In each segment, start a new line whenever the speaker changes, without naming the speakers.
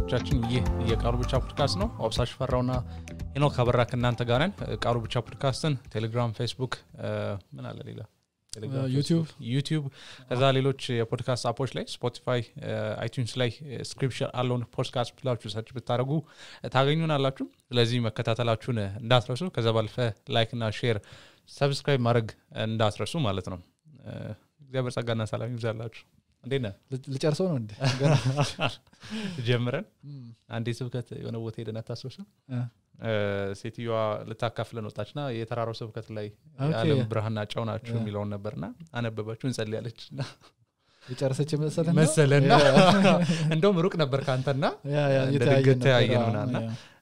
ተመልካቾቻችን ይህ የቃሉ ብቻ ፖድካስት ነው። አብሳሽ ፈራውና ሄኖክ አበራ ከእናንተ ጋር ነን። ቃሉ ብቻ ፖድካስትን ቴሌግራም፣ ፌስቡክ ምን አለ ሌላ ዩቲዩብ ከዛ ሌሎች የፖድካስት አፖች ላይ ስፖቲፋይ፣ አይቲዩንስ ላይ ስክሪፕቸር አለውን ፖድካስት ብላችሁ ሰርች ብታደርጉ ታገኙናላችሁ። ስለዚህ መከታተላችሁን እንዳትረሱ። ከዛ ባለፈ ላይክ እና ሼር ሰብስክራይብ ማድረግ እንዳትረሱ ማለት ነው። እግዚአብሔር ጸጋና ሰላም ይብዛላችሁ። እንዴና
ልጨርሰው ነው እንዴ?
ጀምረን አንዴ ስብከት የሆነ ቦታ ሄደን አታስወሰን ሴትዮዋ ልታካፍለን ወጣችና የተራራው ስብከት ላይ የዓለም ብርሃንና ጨው ናችሁ የሚለውን ነበርና አነበበችው እንጸልያለችና
የጨረሰች
መሰለና እንደውም ሩቅ ነበር ካንተና የተያየነውና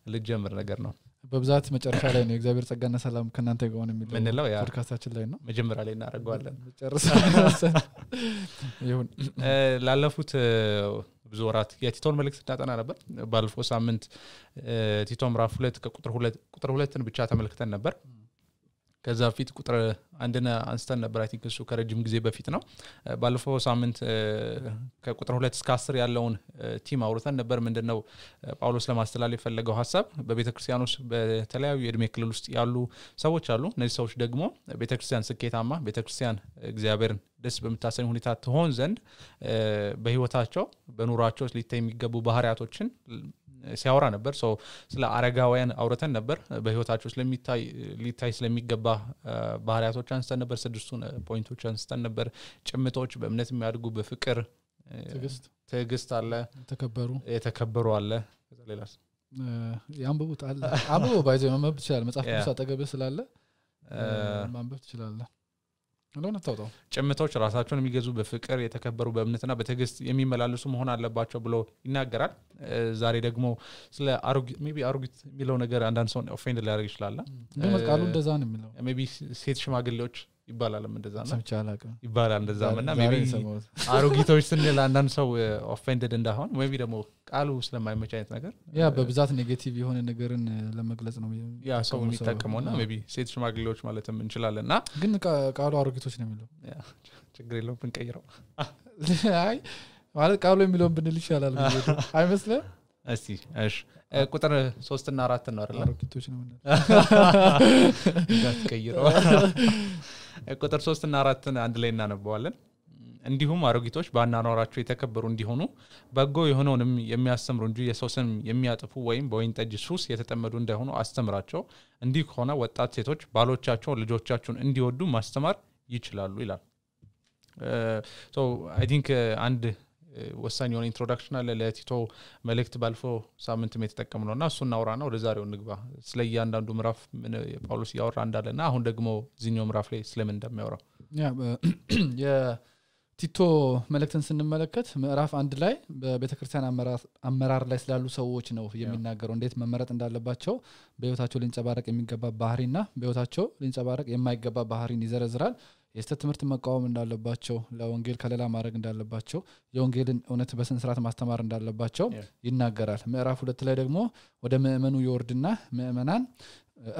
ልጀምር ነገር ነው።
በብዛት መጨረሻ ላይ ነው እግዚአብሔር ጸጋና ሰላም ከናንተ ጋር ሆነ
የሚለው
ፖድካስታችን ላይ ነው።
መጀመሪያ ላይ እናደርገዋለን።
ጨርሰን ይሁን
ላለፉት ብዙ ወራት የቲቶን መልእክት እንዳጠና ነበር። ባለፈው ሳምንት ቲቶ ምዕራፍ 2 ቁጥር 2ን ብቻ ተመልክተን ነበር። ከዛ ፊት ቁጥር 1ን አንስተን ነበር። አይ ቲንክ እሱ ከረጅም ጊዜ በፊት ነው። ባለፈው ሳምንት ከቁጥር 2 እስከ 10 ያለውን ቲም አውርተን ነበር። ምንድነው ጳውሎስ ለማስተላለፍ የፈለገው ሐሳብ? በቤተክርስቲያን ውስጥ በተለያዩ የእድሜ ክልል ውስጥ ያሉ ሰዎች አሉ። እነዚህ ሰዎች ደግሞ ቤተክርስቲያን ስኬታማ፣ ቤተክርስቲያን እግዚአብሔርን ደስ በምታሰኝ ሁኔታ ትሆን ዘንድ በህይወታቸው በኑሯቸው ሊታይ የሚገቡ ባህሪያቶችን ሲያወራ ነበር። ስለ አረጋውያን አውርተን ነበር። በህይወታቸው ሊታይ ስለሚገባ ባህሪያቶች አንስተን ነበር። 6ቱን ፖይንቶች አንስተን ነበር። ጭምቶች፣ በእምነት የሚያድጉ፣ በፍቅር፣ ትዕግስት አለ፣ የተከበሩ አለ። ከዛ ሌላስ
ያንብቡት አለ። አብቦ ባይዘው ማንበብ ትችላለህ። መጽሐፍ ቅዱስ አጠገብህ ስላለ ማንበብ ትችላለህ። እንደሆነ ታውጣው።
ጭምቶች ራሳቸውን የሚገዙ፣ በፍቅር የተከበሩ፣ በእምነትና በትዕግስት የሚመላለሱ መሆን አለባቸው ብሎ ይናገራል። ዛሬ ደግሞ ስለ አሮጊት የሚለው ነገር አንዳንድ ሰው ኦፌንድ ሊያደርግ ይችላል።
ግን ቃሉ እንደዛ ነው የሚለው።
ሜቢ ሴት ሽማግሌዎች ይባላልም እንደዛ ነው
ሰምቻለሁ
ይባላል እንደዛና ሜቢ አሮጊቶች ስንል አንዳንድ ሰው ኦፌንድድ እንዳሆን ሜቢ ደግሞ ቃሉ ስለማይመች አይነት ነገር
በብዛት ኔጌቲቭ የሆነ ነገርን ለመግለጽ ነው
ሰው የሚጠቀመውና ሜቢ ሴት ሽማግሌዎች ማለትም እንችላለንና
ግን ቃሉ አሮጊቶች ነው የሚለው።
ችግር የለውም ብንቀይረው።
አይ ማለት ቃሉ የሚለውን ብንል ይሻላል አይመስልም?
እስቲ እሺ ቁጥር 3 እና 4 ነው አይደል?
አሮጊቶች ነው ማለት
እንዳትቀይረው። ቁጥር 3 እና 4ን አንድ ላይ እናነባዋለን። እንዲሁም አሮጊቶች በአኗኗራቸው የተከበሩ እንዲሆኑ በጎ የሆነውንም የሚያስተምሩ እንጂ የሰው ስም የሚያጥፉ ወይም በወይን ጠጅ ሱስ የተጠመዱ እንዳይሆኑ አስተምራቸው። እንዲህ ከሆነ ወጣት ሴቶች ባሎቻቸውን፣ ልጆቻቸውን እንዲወዱ ማስተማር ይችላሉ ይላል። አይ ቲንክ አንድ ወሳኝ የሆነ ኢንትሮዳክሽን አለ ለቲቶ መልእክት ባለፈው ሳምንት የተጠቀምነውና እሱን እናውራና ወደ ዛሬው ንግባ። ስለ እያንዳንዱ ምዕራፍ ጳውሎስ ያወራ እንዳለና አሁን ደግሞ እዚህኛው ምዕራፍ ላይ ስለምን እንደሚያወራ
የቲቶ መልእክትን ስንመለከት ምዕራፍ 1 ላይ በቤተክርስቲያን አመራር ላይ ስላሉ ሰዎች ነው የሚናገረው። እንዴት መመረጥ እንዳለባቸው፣ በህይወታቸው ሊንጸባረቅ የሚገባ ባህሪና በህይወታቸው ሊንጸባረቅ የማይገባ ባህሪን ይዘረዝራል። የስተት ትምህርት መቃወም እንዳለባቸው፣ ለወንጌል ከለላ ማድረግ እንዳለባቸው፣ የወንጌልን እውነት በስነ ስርዓት ማስተማር እንዳለባቸው ይናገራል። ምዕራፍ 2 ላይ ደግሞ ወደ ምእመኑ ይወርድና ምእመናን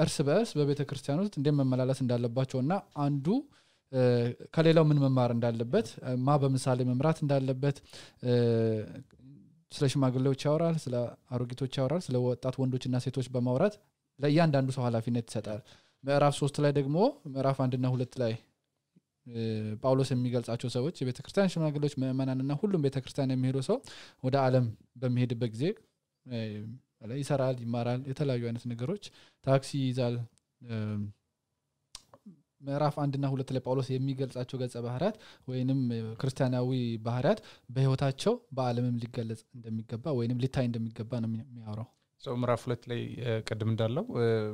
እርስ በእርስ በቤተክርስቲያን ውስጥ እንዴት መመላለስ እንዳለባቸውና አንዱ ከሌላው ምን መማር እንዳለበት፣ በምሳሌ መምራት እንዳለበት ስለ ሽማግሌዎች ያወራል፣ ስለ አሮጊቶች ያወራል፣ ስለ ወጣት ወንዶችና ሴቶች በማውራት ለእያንዳንዱ ሰው ኃላፊነት ይሰጣል። ምዕራፍ 3 ላይ ደግሞ ምዕራፍ 1 እና 2 ላይ ጳውሎስ የሚገልጻቸው ሰዎች የቤተክርስቲያን ሽማግሌዎች፣ ምእመናንና ሁሉም ቤተክርስቲያን የሚሄዱ ሰው ወደ ዓለም በሚሄድበት ጊዜ ይሰራል፣ ይማራል፣ የተለያዩ አይነት ነገሮች ታክሲ ይዛል። ምዕራፍ 1 እና 2 ላይ ጳውሎስ የሚገልጻቸው ገጸ ባህሪያት ወይንም ክርስቲያናዊ ባህሪያት በህይወታቸው በዓለምም ሊገለጽ እንደሚገባ ወይንም ሊታይ እንደሚገባ ነው የሚያወራው።
ምዕራፍ 2 ላይ ቀድም እንዳለው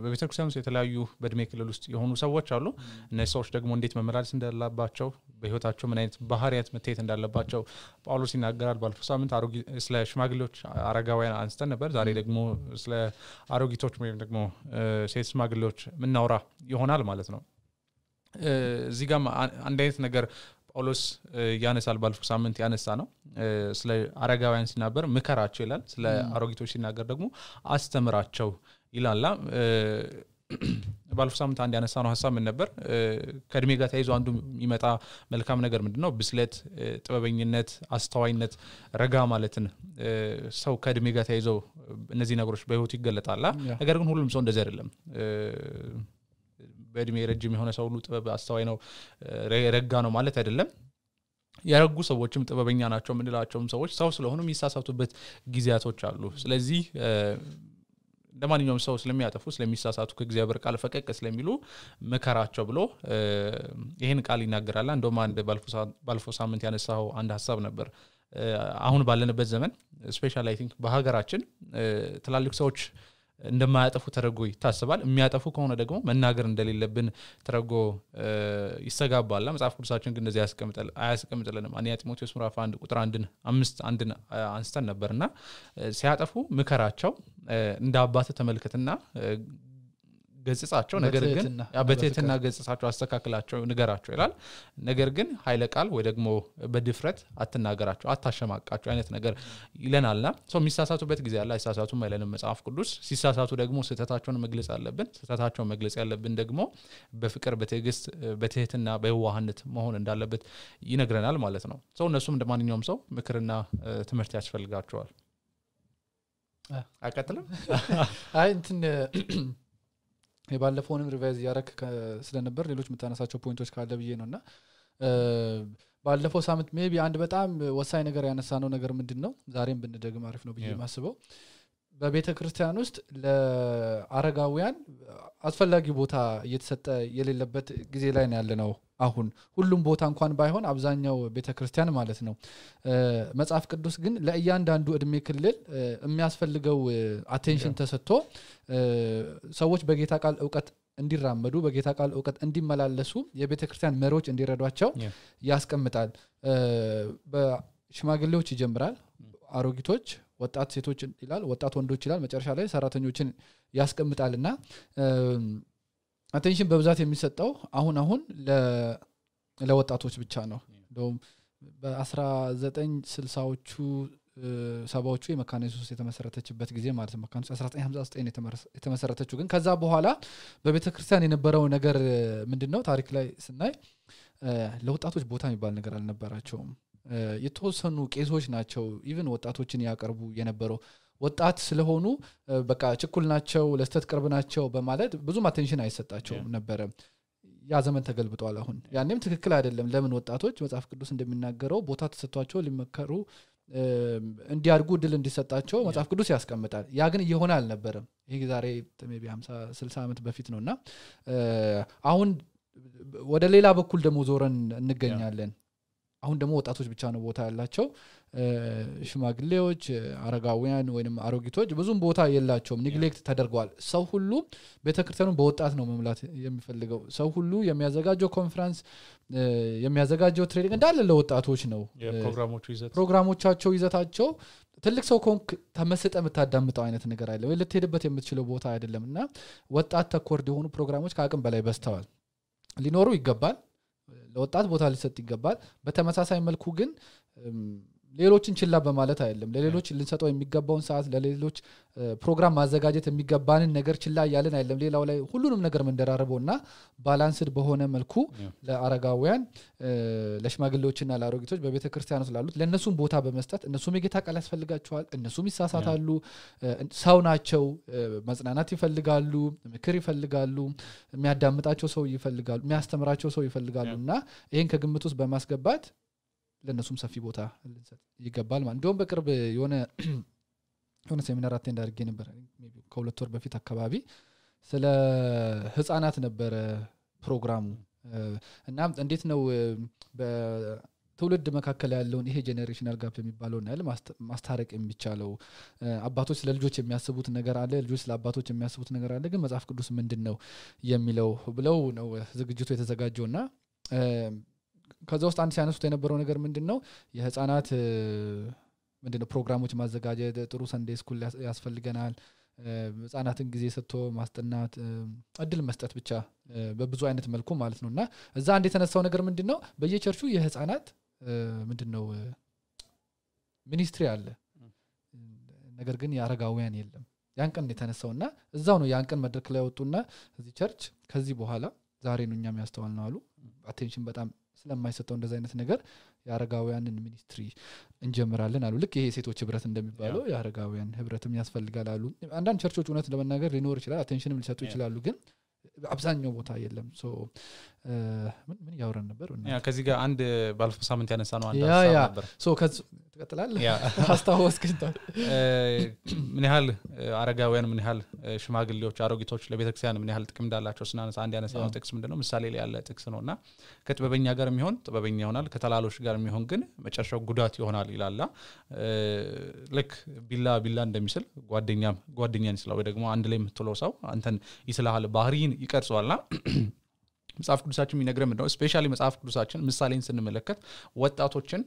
በቤተክርስቲያን ውስጥ የተለያዩ በእድሜ ክልል ውስጥ የሆኑ ሰዎች አሉ። እነዚህ ሰዎች ደግሞ እንዴት መመላለስ እንዳለባቸው፣ በህይወታቸው ምን አይነት ባህሪያት መታየት እንዳለባቸው ጳውሎስ ይናገራል። ባለፈው ሳምንት ስለ ሽማግሌዎች፣ አረጋውያን አንስተን ነበር። ዛሬ ደግሞ ስለ አሮጊቶች ወይም ደግሞ ሴት ሽማግሌዎች ምናወራ ይሆናል ማለት ነው። እዚህ ጋር አንድ አይነት ነገር ጳውሎስ ያነሳል። ባለፈው ሳምንት ያነሳ ነው ስለ አረጋውያን ሲናገር ምከራቸው ይላል። ስለ አሮጊቶች ሲናገር ደግሞ አስተምራቸው ይላል። ባለፈው ሳምንት አንድ ያነሳነው ሐሳብ ምን ነበር ከእድሜ ጋር ተያይዞ አንዱ የሚመጣ መልካም ነገር ምንድነው ብስለት ጥበበኝነት አስተዋይነት ረጋ ማለትን ሰው ከእድሜ ጋር ተያይዞ እነዚህ ነገሮች በህይወት ይገለጣል ነገር ግን ሁሉም ሰው እንደዚህ አይደለም በእድሜ ረጅም የሆነ ሰው ሁሉ ጥበብ አስተዋይ ነው ረጋ ነው ማለት አይደለም ያረጉ ሰዎችም ጥበበኛ ናቸው ምንላቸውም ሰዎች ሰው ስለሆኑ የሚሳሳቱበት ጊዜያቶች አሉ ስለዚህ እንደማንኛውም ሰው ስለሚያጠፉ ስለሚሳሳቱ ከእግዚአብሔር ቃል ፈቀቅ ስለሚሉ መከራቸው ብሎ ይሄን ቃል ይናገራል እንደውም አንድ ባለፈው ሳምንት ያነሳው አንድ ሐሳብ ነበር አሁን ባለንበት ዘመን ስፔሻሊ አይ ቲንክ በሀገራችን ትላልቅ ሰዎች እንደማያጠፉ ተረጎ ይታሰባል የሚያጠፉ ከሆነ ደግሞ መናገር እንደሌለብን ተረጎ ይሰጋባል መጽሐፍ ቅዱሳችን ግን እንደዚህ አያስቀምጥልንም አንያ ጢሞቴዎስ ምዕራፍ 1 ቁጥር 1 አንስተን ነበርና ሲያጠፉ ምከራቸው እንደ አባት ተመልከትና ገጽጻቸው ነገር ግን በትህትና ገጽጻቸው አስተካክላቸው ንገራቸው ይላል ነገር ግን ኃይለ ቃል ወይ ደግሞ በድፍረት አትናገራቸው አታሸማቃቸው አይነት ነገር ይለናልና ሰው የሚሳሳቱበት ጊዜ አለ አይሳሳቱም አይለንም መጽሐፍ ቅዱስ ሲሳሳቱ ደግሞ ስህተታቸውን መግለጽ አለብን ስህተታቸውን መግለጽ ያለብን ደግሞ በፍቅር በትዕግስት በትህትና በዋህነት መሆን እንዳለበት ይነግረናል ማለት ነው ሰው እነሱም እንደማንኛውም ሰው ምክርና ትምህርት ያስፈልጋቸዋል አቀጥልም
አይ እንትን የባለፈውንም ሪቫይዝ ያረክ ስለነበር ሌሎች መታነሳቸው ፖይንቶች ካለ ብዬ ነውና ባለፈው ሳምንት ሜቢ አንድ በጣም ወሳኝ ነገር ያነሳነው ነገር ምንድነው ዛሬም ብንደግም አሪፍ ነው ብዬ ማስበው በቤተክርስቲያን ውስጥ ለአረጋውያን አስፈላጊ ቦታ እየተሰጠ የሌለበት ጊዜ ላይ ነው ያለነው አሁን ሁሉም ቦታ እንኳን ባይሆን አብዛኛው ቤተክርስቲያን ማለት ነው መጽሐፍ ቅዱስ ግን ለእያንዳንዱ እድሜ ክልል የሚያስፈልገው አቴንሽን ተሰጥቶ ሰዎች በጌታ ቃል ዕውቀት እንዲራመዱ በጌታ ቃል ዕውቀት እንዲመላለሱ የቤተክርስቲያን መሪዎች እንዲረዷቸው ያስቀምጣል በሽማግሌዎች ይጀምራል አሮጊቶች ወጣት ሴቶች ይላል ወጣት ወንዶች ይላል መጨረሻ ላይ ሰራተኞችን ያስቀምጣልና አቴንሽን በብዛት የሚሰጠው አሁን ለወጣቶች ብቻ ነው እንደውም በ1960ዎቹ ሰባዎቹ የመካነ ኢየሱስ የተመሰረተችበት ጊዜ ማለት ነው መካነ 1959 የተመሰረተችው ግን ከዛ በኋላ በቤተክርስቲያን የነበረው ነገር ምንድነው ታሪክ ላይ ስናይ ለወጣቶች ቦታ የሚባል ነገር አልነበራቸውም የተወሰኑ ቄሶች ናቸው ኢቭን ወጣቶችን ያቀርቡ የነበረው ወጣት ስለሆኑ በቃ ችኩል ናቸው ለስተት ቅርብ ናቸው በማለት ብዙ አቴንሽን አይሰጣቸው ነበር ያ ዘመን ተገልብጧል አሁን ያኔም ትክክል አይደለም ለምን ወጣቶች መጽሐፍ ቅዱስ እንደሚናገረው ቦታ ተሰጥቷቸው ሊመከሩ እንዲያርጉ ድል እንዲሰጣቸው መጽሐፍ ቅዱስ ያስቀምጣል ያ ግን እየሆነ አልነበረም ይሄ ዛሬ ሜቢ 50 60 ዓመት በፊት ነውና አሁን ወደ ሌላ በኩል ደሞ ዞረን እንገኛለን አሁን ደሞ ወጣቶች ብቻ ነው ቦታ ያላቸው ሽማግሌዎች አረጋውያን ወይንም አሮጊቶች ብዙም ቦታ የላቸውም ኔግሌክት ተደርጓል ሰው ሁሉ ቤተክርስቲያኑን በወጣት ነው መምላት የሚፈልገው ሰው ሁሉ የሚያዘጋጀው ኮንፈረንስ የሚያዘጋጀው ትሬኒንግ እንዳለ ለወጣቶች ነው ፕሮግራሞቻቸው ይዘታቸው ትልቅ ሰው ኮንክ ተመስጠ መታዳምጣው አይነት ነገር አይደለም ወይ ለተሄደበት የምትችለው ቦታ አይደለምና ወጣት ተኮርድ የሆኑ ፕሮግራሞች ከአቅም በላይ በስተዋል ሊኖሩ ይገባል ለወጣት ቦታ ሊሰጥ ይገባል በተመሳሳይ መልኩ ግን ሌሎችን ችላ በማለት አይደለም ለሌሎች ልንሰጠው የሚገባውን ሰዓት ለሌሎች ፕሮግራም ማዘጋጀት የሚገባንን ነገር ችላ ያለን አይደለም ሌላው ላይ ሁሉንም ነገር መንደራረበውና ባላንስድ በሆነ መልኩ ለአረጋውያን ለሽማግሌዎችና ለአሮጊቶች በቤተክርስቲያኑ ስላሉት ለነሱም ቦታ በመስጠት እነሱም የጌታ ቃል ያስፈልጋቸዋል እነሱም ይሳሳታሉ ሰው ናቸው መጽናናት ይፈልጋሉ ምክር ይፈልጋሉ የሚያዳምጣቸው ሰው ይፈልጋሉ የሚያስተምራቸው ሰው ይፈልጋሉና ይሄን ከግምት ውስጥ በማስገባት ለነሱም ሰፊ ቦታ ይገባል ማለት እንደውም በቅርብ የሆነ ሴሚናር አቴንድ አድርጌ ነበር ሜቢ ከሁለት ወር በፊት አካባቢ ስለ ህፃናት ነበር ፕሮግራሙ እና እንዴት ነው በትውልድ መካከል ያለውን ይሄ ጄነሬሽናል ጋፕ የሚባለውን ያለ ማስታረቅ የሚቻለው አባቶች ለልጆች የሚያስቡት ነገር አለ ልጆች ለአባቶች የሚያስቡት ነገር አለ ግን መጽሐፍ ቅዱስ ምንድነው የሚለው ብለው ነው ዝግጅቱ የተዘጋጀውና ከዛ ውስጥ አንድ ሲያነሱት የነበረው ነገር ምንድነው የህፃናት ምንድነው ፕሮግራሞች ማዘጋጀት ጥሩ ሰንዴይ ስኩል ያስፈልገናል ህፃናትን ጊዜ ሰጥቶ ማስጠናት እድል መስጠት ብቻ በብዙ አይነት መልኩ ማለት ነውና እዛ አንድ የተነሳው ነገር ምንድነው በየቸርቹ የህፃናት ምንድነው ሚኒስትሪ አለ ነገር ግን ያረጋውያን የለም ያን ቀን የተነሳውና እዛው ነው ያን ቀን መድረክ ላይ ወጡና እዚህ ቸርች ከዚህ በኋላ ዛሬ ነው እኛም ያስተዋልነው አሉ አቴንሽን በጣም ስለማይሰጠው እንደዛ አይነት ነገር ያረጋውያንን ሚኒስትሪ እንጀምራለን አሉ ልክ ይሄ ሴቶች ህብረት እንደሚባለው ያረጋውያን ህብረትም ያስፈልጋል አሉ አንዳንድ ቸርቾች እውነት ለመናገር ሊኖር ይችላል አቴንሽንም ሊሰጡ ይችላሉ ግን አብዛኛው ቦታ የለም ሶ ምን ያወራን ነበር
ከዚህ ጋር አንድ ባለፈው ሳምንት ያነሳ ነው አንድ ሀሳብ ነበር
ሶ ትቀጥላለህ አስታወስከኝ
ምን ያህል አረጋውያን ምን ያህል ሽማግሌዎች አሮጊቶች ለቤተክርስቲያን ምን ያህል ጥቅም እንዳላቸው ስናነሳ አንድ ያነሳው ጥቅስ ምንድነው ምሳሌ ላይ ያለ ጥቅስ ነውና ከጥበበኛ ጋር የሚሆን ጥበበኛ ይሆናል ከተላሎች ጋር የሚሆን ግን መጨረሻው ጉዳት ይሆናል ይላል ልክ ቢላ እንደሚስል ጓደኛን ይስላል ወይ ደግሞ አንድ ላይ የምትለው ሰው አንተን ይስላል ባህሪን ይቀርጸዋልና መጽሐፍ ቅዱሳችን የሚነግረን ምንድነው ስፔሻሊ መጽሐፍ ቅዱሳችን ምሳሌን ስንመለከት ወጣቶችን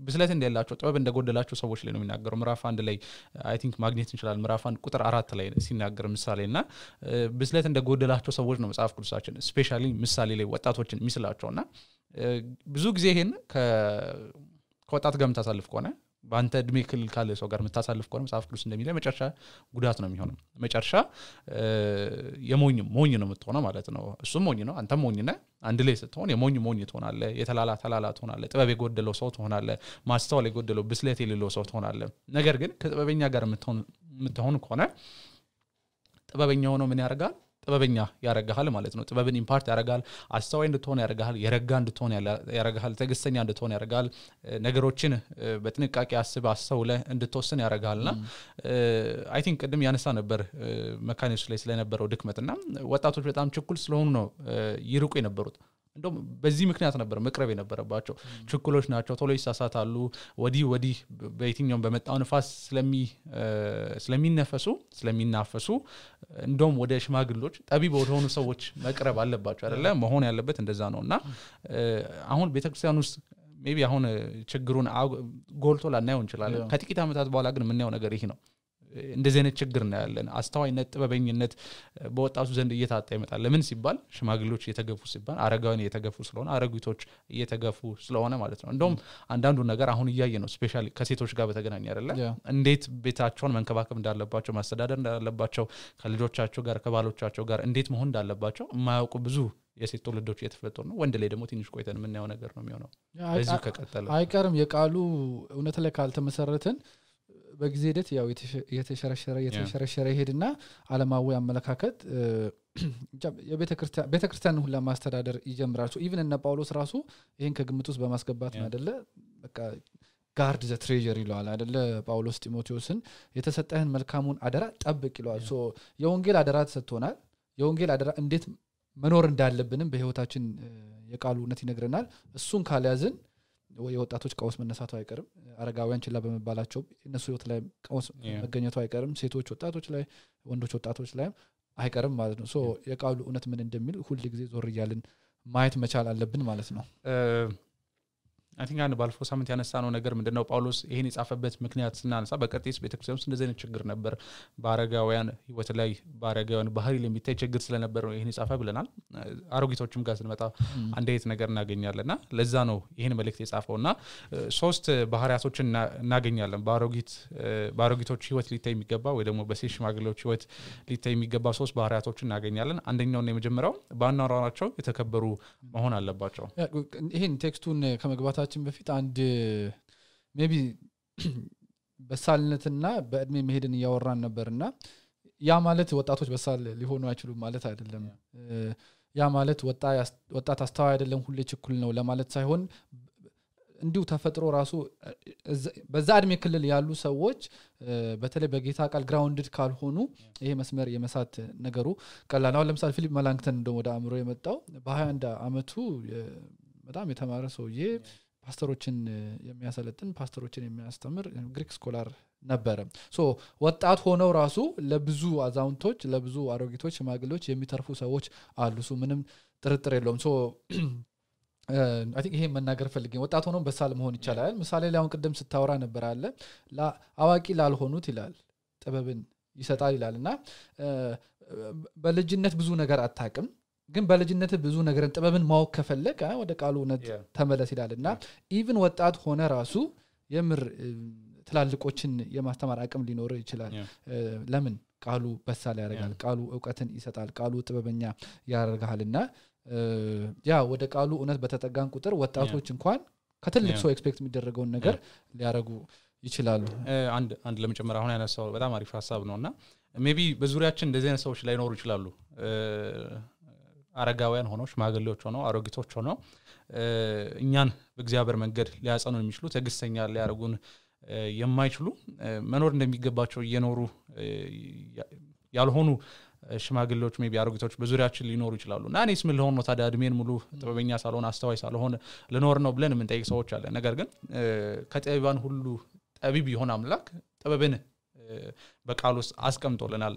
ብስለት እንደሌላቸው ጥበብ እንደጎደላቸው ሰዎች ላይ ነው የሚናገረው ምዕራፍ 1 ላይ አይ ቲንክ ማግኘት እንችላለን ምዕራፍ 1 ቁጥር 4 ላይ ሲናገር ምሳሌና ብስለት እንደጎደላቸው ሰዎች ነው መጽሐፍ ቅዱሳችን ስፔሻሊ ምሳሌ ላይ ወጣቶችን የሚስላቸውና ብዙ ጊዜ ይሄን ከወጣት ጋር መታሳልፍ ከሆነ ባንተ እድሜ ክልል ካለ ሰው ጋር መታሳልፍ ከሆነ መጽሐፍ ቅዱስ እንደሚለው መጨረሻ ጉዳት ነው የሚሆነው መጨረሻ የሞኝ ነው የምትሆነው ማለት ነው እሱም ሞኝ ነው አንተም ሞኝ ነህ አንድ ላይ ስትሆን የሞኝ ትሆናለህ የተላላ ትሆናለህ ጥበብ የጎደለው ሰው ትሆናለህ ማስተዋል የጎደለው ብስለት የሌለው ሰው ትሆናለህ ነገር ግን ከጥበበኛ ጋር የምትሆን ከሆነ ጥበበኛ ሆኖ ምን ያደርጋል ጥበበኛ ያረጋሃል ማለት ነው ጥበብን ኢምፓርት ያረጋል አስተዋይ እንድትሆን ያረጋሃል የረጋ እንድትሆን ያረጋሃል ተግስተኛ እንድትሆን ያረጋል ነገሮችን በጥንቃቄ አስተውለ እንድትወስን ያረጋልና አይ ቲንክ ቅድም ያነሳ ነበር መካኒክስ ላይ ስለነበረው ድክመትና ወጣቶች በጣም ችኩል ስለሆኑ ነው ይርቁ የነበሩት እንደውም በዚህ ምክንያት ነበር መቅረብ የነበረባቸው ችኩሎች ናቸው ቶሎ ይሳሳታሉ ወዲህ በየትኛው በመጣው ንፋስ ስለሚናፈሱ እንደውም ወደ ሽማግሌዎች ጠቢብ ወደሆኑ ሰዎች መቅረብ አለባቸው አይደለ መሆን ያለበት እንደዛ ነውና አሁን ቤተክርስቲያን ውስጥ ሜቢ አሁን ችግሩን ጎልቶ ላናየው እንችላለን ከጥቂት አመታት በኋላ ግን የምናየው ነገር ይሄ ነው እንደዚህ አይነት ችግር ነው ያለን አስተዋይነት ጥበበኝነት በወጣቱ ዘንድ እየታጣ ይመጣል ለምን ሲባል ሽማግሌዎች እየተገፉ ሲባል አረጋውያን እየተገፉ ስለሆነ አረጋዊቶች እየተገፉ ስለሆነ ማለት ነው እንደውም አንዳንዱ ነገር አሁን እያየ ነው ስፔሻሊ ከሴቶች ጋር በተገናኘ አይደለ እንዴት ቤታቸውን መንከባከብ እንዳለባቸው ማስተዳደር እንዳለባቸው ከልጆቻቸው ጋር ከባሎቻቸው ጋር እንዴት መሆን እንዳለባቸው የማያውቁ ብዙ የሴት ትውልዶች እየተፈጠሩ ነው ወንድ ላይ ደግሞ ትንሽ ቆይተን የምናየው ነገር ነው የሚሆነው በዚህ ከቀጠለ አይቀርም
የቃሉ እውነት ላይ ካልተመሰረትን በጊዜ ሂደት ያው የተሸረሸረ ይሄድና ዓለማዊ አመለካከት የቤተክርስቲያን ሁሉ ማስተዳደር ይጀምራል ኢቭን እነ ጳውሎስ ራሱ ይሄን ከግምት ውስጥ በማስገባት ነው አይደለ በቃ ጋርድ ዘ ትሬዠር ይለዋል አይደለ ጳውሎስ ጢሞቴዎስን የተሰጠህን መልካሙን አደራ ጠብቅ ይለዋል የወንጌል አደራ ተሰጥቶናል የወንጌል አደራ እንዴት መኖር እንዳለብንም በህይወታችን የቃሉ እውነት ይነግረናል እሱን ካልያዝን የወጣቶች ቀውስ መነሳቱ አይቀርም አረጋውያን ችላ በመባላቸው እነሱ ህይወት ላይ ቀውስ መገኘቱ አይቀርም ሴቶች ወጣቶች ላይ ወንዶች ወጣቶች ላይ አይቀርም ማለት ነው የቃሉ እውነት ምን እንደሚል ሁሉ ጊዜ ዞር ይያልን ማየት መቻል አለብን ማለት ነው
I think አንድ ባለፈው ሳምንት ያነሳነው ነገር ምንድነው ጳውሎስ ይሄን የጻፈበት ምክንያት ስናነሳ በቀርጤስ ቤተክርስቲያን ውስጥ እንደዚህ አይነት ችግር ነበር በአረጋውያን ህይወት ላይ በአረጋውያን ባህሪ ላይ የሚታይ ችግር ስለነበር ነው ይሄን የጻፈ ብለናል አሮጊቶችም ጋር ስንመጣ አንድ አይነት ነገር እናገኛለንና ለዛ ነው ይሄን መልእክት የጻፈውና ሶስት ባህሪያቶችን እናገኛለን በአሮጊቶች ህይወት ሊታይ የሚገባ ወይ ደግሞ በሴት ሽማግሌዎች ህይወት ሊታይ የሚገባ ሶስት ባህሪያቶችን እናገኛለን አንደኛውና የመጀመሪያው ባናወራቸው የተከበሩ መሆን አለባቸው
ይሄን ቴክስቱን ከመግባታችን በፊት አንድ ሜቢ በሳልነትና በእድሜ መሄድን ያወራን ነበርና ያ ማለት ወጣቶች በሳል ሊሆኑ አይችሉም ማለት አይደለም ያ ማለት ወጣት አስተዋይ አይደለም ሁሌ ችኩል ነው ለማለት ሳይሆን እንዲሁ ተፈጥሮ ራሱ በዛ እድሜ ክልል ያሉ ሰዎች በተለይ በጌታ ቃል ግራውንድድ ካልሆኑ ይሄ መስመር የመሳት ነገሩ ቀላል ነው ለምሳሌ ፊሊፕ መላንክተን እንደው ወደ አእምሮ የመጣው በ21 አመቱ በጣም የተማረ ሰውዬ ፓስተሮችን የሚያሰለጥን ፓስተሮችን የሚያስተምር ግሪክ ስኮላር ነበረ ወጣት ሆነው ራሱ ለብዙ አዛውንቶች ለብዙ አሮጊቶች ሽማግሌዎች የሚተርፉ ሰዎች አሉ ምንም ጥርጥር የለውም አይ ቲንክ ይሄ መናገር ፈልጌ ወጣት ሆነው በሳል መሆን ይችላል ምሳሌ ላይ አሁን ቀደም ስታወራ ነበር አለ አዋቂ ላልሆኑት ይላል ጥበብን ይሰጣል ይላልና በልጅነት ብዙ ነገር አታውቅም ግን በልጅነት ብዙ ነገር ጥበብን ማወቅ ከፈለክ ወደ ቃሉ እውነት ተመለስ ይላልና ኢቭን ወጣት ሆነ ራሱ የምር ትላልቆችን የማስተማር አቅም ሊኖር ይችላል ለምን ቃሉ በሳል ያደርጋል ቃሉ ዕውቀትን ይሰጣል ቃሉ ጥበበኛ ያደርጋልና ያ ወደ ቃሉ እውነት በተጠጋን ቁጥር ወጣቶች እንኳን ከትልቅ ሰው ኤክስፔክት የሚደረገውን ነገር ሊያረጉ ይችላሉ
አንድ ለመጨመር አሁን ያነሳው በጣም አሪፍ ሐሳብ ነውና ሜቢ በዙሪያችን እንደዚህ አይነት ሰዎች ላይኖሩ ይችላሉ አረጋውያን ሆነው ሽማግሌዎች ሆነው አሮጊቶች ሆነው እኛን በእግዚአብሔር መንገድ ሊያጸኑ የሚችሉ ተግስተኛ ሊያረጉን የማይችሉ መኖር እንደሚገባቸው እየኖሩ ያልሆኑ ሽማግሌዎች ሜቢ አሮጊቶች በዙሪያችን ሊኖሩ ይችላሉና እኔስ ምን ልሆን ነው ታዲያ እድሜን ሙሉ ጥበበኛ ሳልሆን አስተዋይ ሳልሆን ልኖር ነው ብለን ምን ጠይቅ ሰዎች አለ ነገር ግን ከጠቢባን ሁሉ ጠቢብ ይሆን አምላክ ጥበብን በቃል ውስጥ አስቀምጦልናል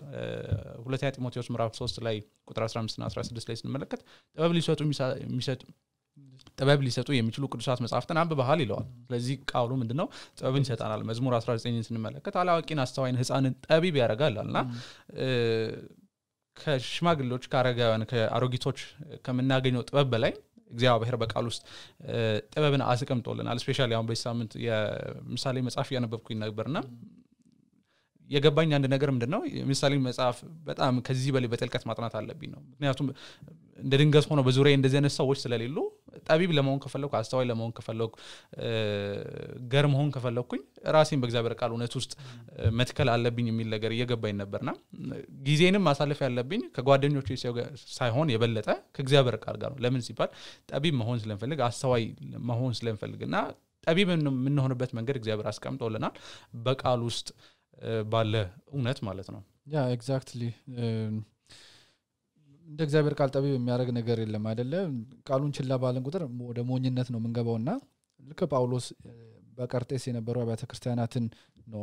ሁለተኛ ጢሞቴዎስ ምዕራፍ 3 ላይ ቁጥር 15 እና 16 ላይ ስንመለከት ጥበብ ሊሰጡ የሚችሉ ቅዱሳት መጻሕፍትን አንብበሃል ይለዋል ስለዚህ ቃሉ ምንድነው ጥበብን ይሰጣናል መዝሙር 19ን ስንመለከት አላዋቂን አስተዋይን ህፃንን ጠቢብ ያደርጋልና ከሽማግሌዎች ከአረጋውያን ከአሮጊቶች ከምናገኘው ጥበብ በላይ እግዚአብሔር በቃል ውስጥ ጥበብን አስቀምጦልናል ስፔሻሊ አሁን በዚህ ሳምንት የምሳሌ መጽሐፍ ያነበብኩኝ ነበርና የገባኝ አንድ ነገር ምንድነው ምሳሌ መጽሐፍ በጣም ከዚህ በላይ በጥልቀት ማጥናት አለብኝ ነው ምክንያቱም እንደ ድንገት ሆኖ በዙሪያ እንደዚህ አይነት ሰዎች ስለሌሉ ጠቢብ ለመሆን ከፈለኩ አስተዋይ ለመሆን ከፈለኩ ገር መሆን ከፈለኩኝ ራሴን በእግዚአብሔር ቃል እውነት ውስጥ መትከል አለብኝ የሚል ነገር እየገባኝ ነበርና ጊዜንም ማሳለፍ ያለብኝ ከጓደኞቼ ሳይሆን የበለጠ ከእግዚአብሔር ቃል ጋር ነው ለምን ሲባል ጠቢብ መሆን ስለምፈልግ አስተዋይ መሆን ስለምፈልግና ጠቢብ የምንሆንበት መንገድ እግዚአብሔር አስቀምጦልናል በቃል ውስጥ ባለ እውነት ማለት ነው
ያ ኤግዛክትሊ እንደ እግዚአብሔር ቃል ጠቢብ የሚያደርግ ነገር የለም አይደለ ቃሉን ችላ ባለን ቁጥር ወደ ሞኝነት ነው መንገባውና ልክ ጳውሎስ በቀርጤስ የነበረው አብያተ ክርስቲያናትን ነው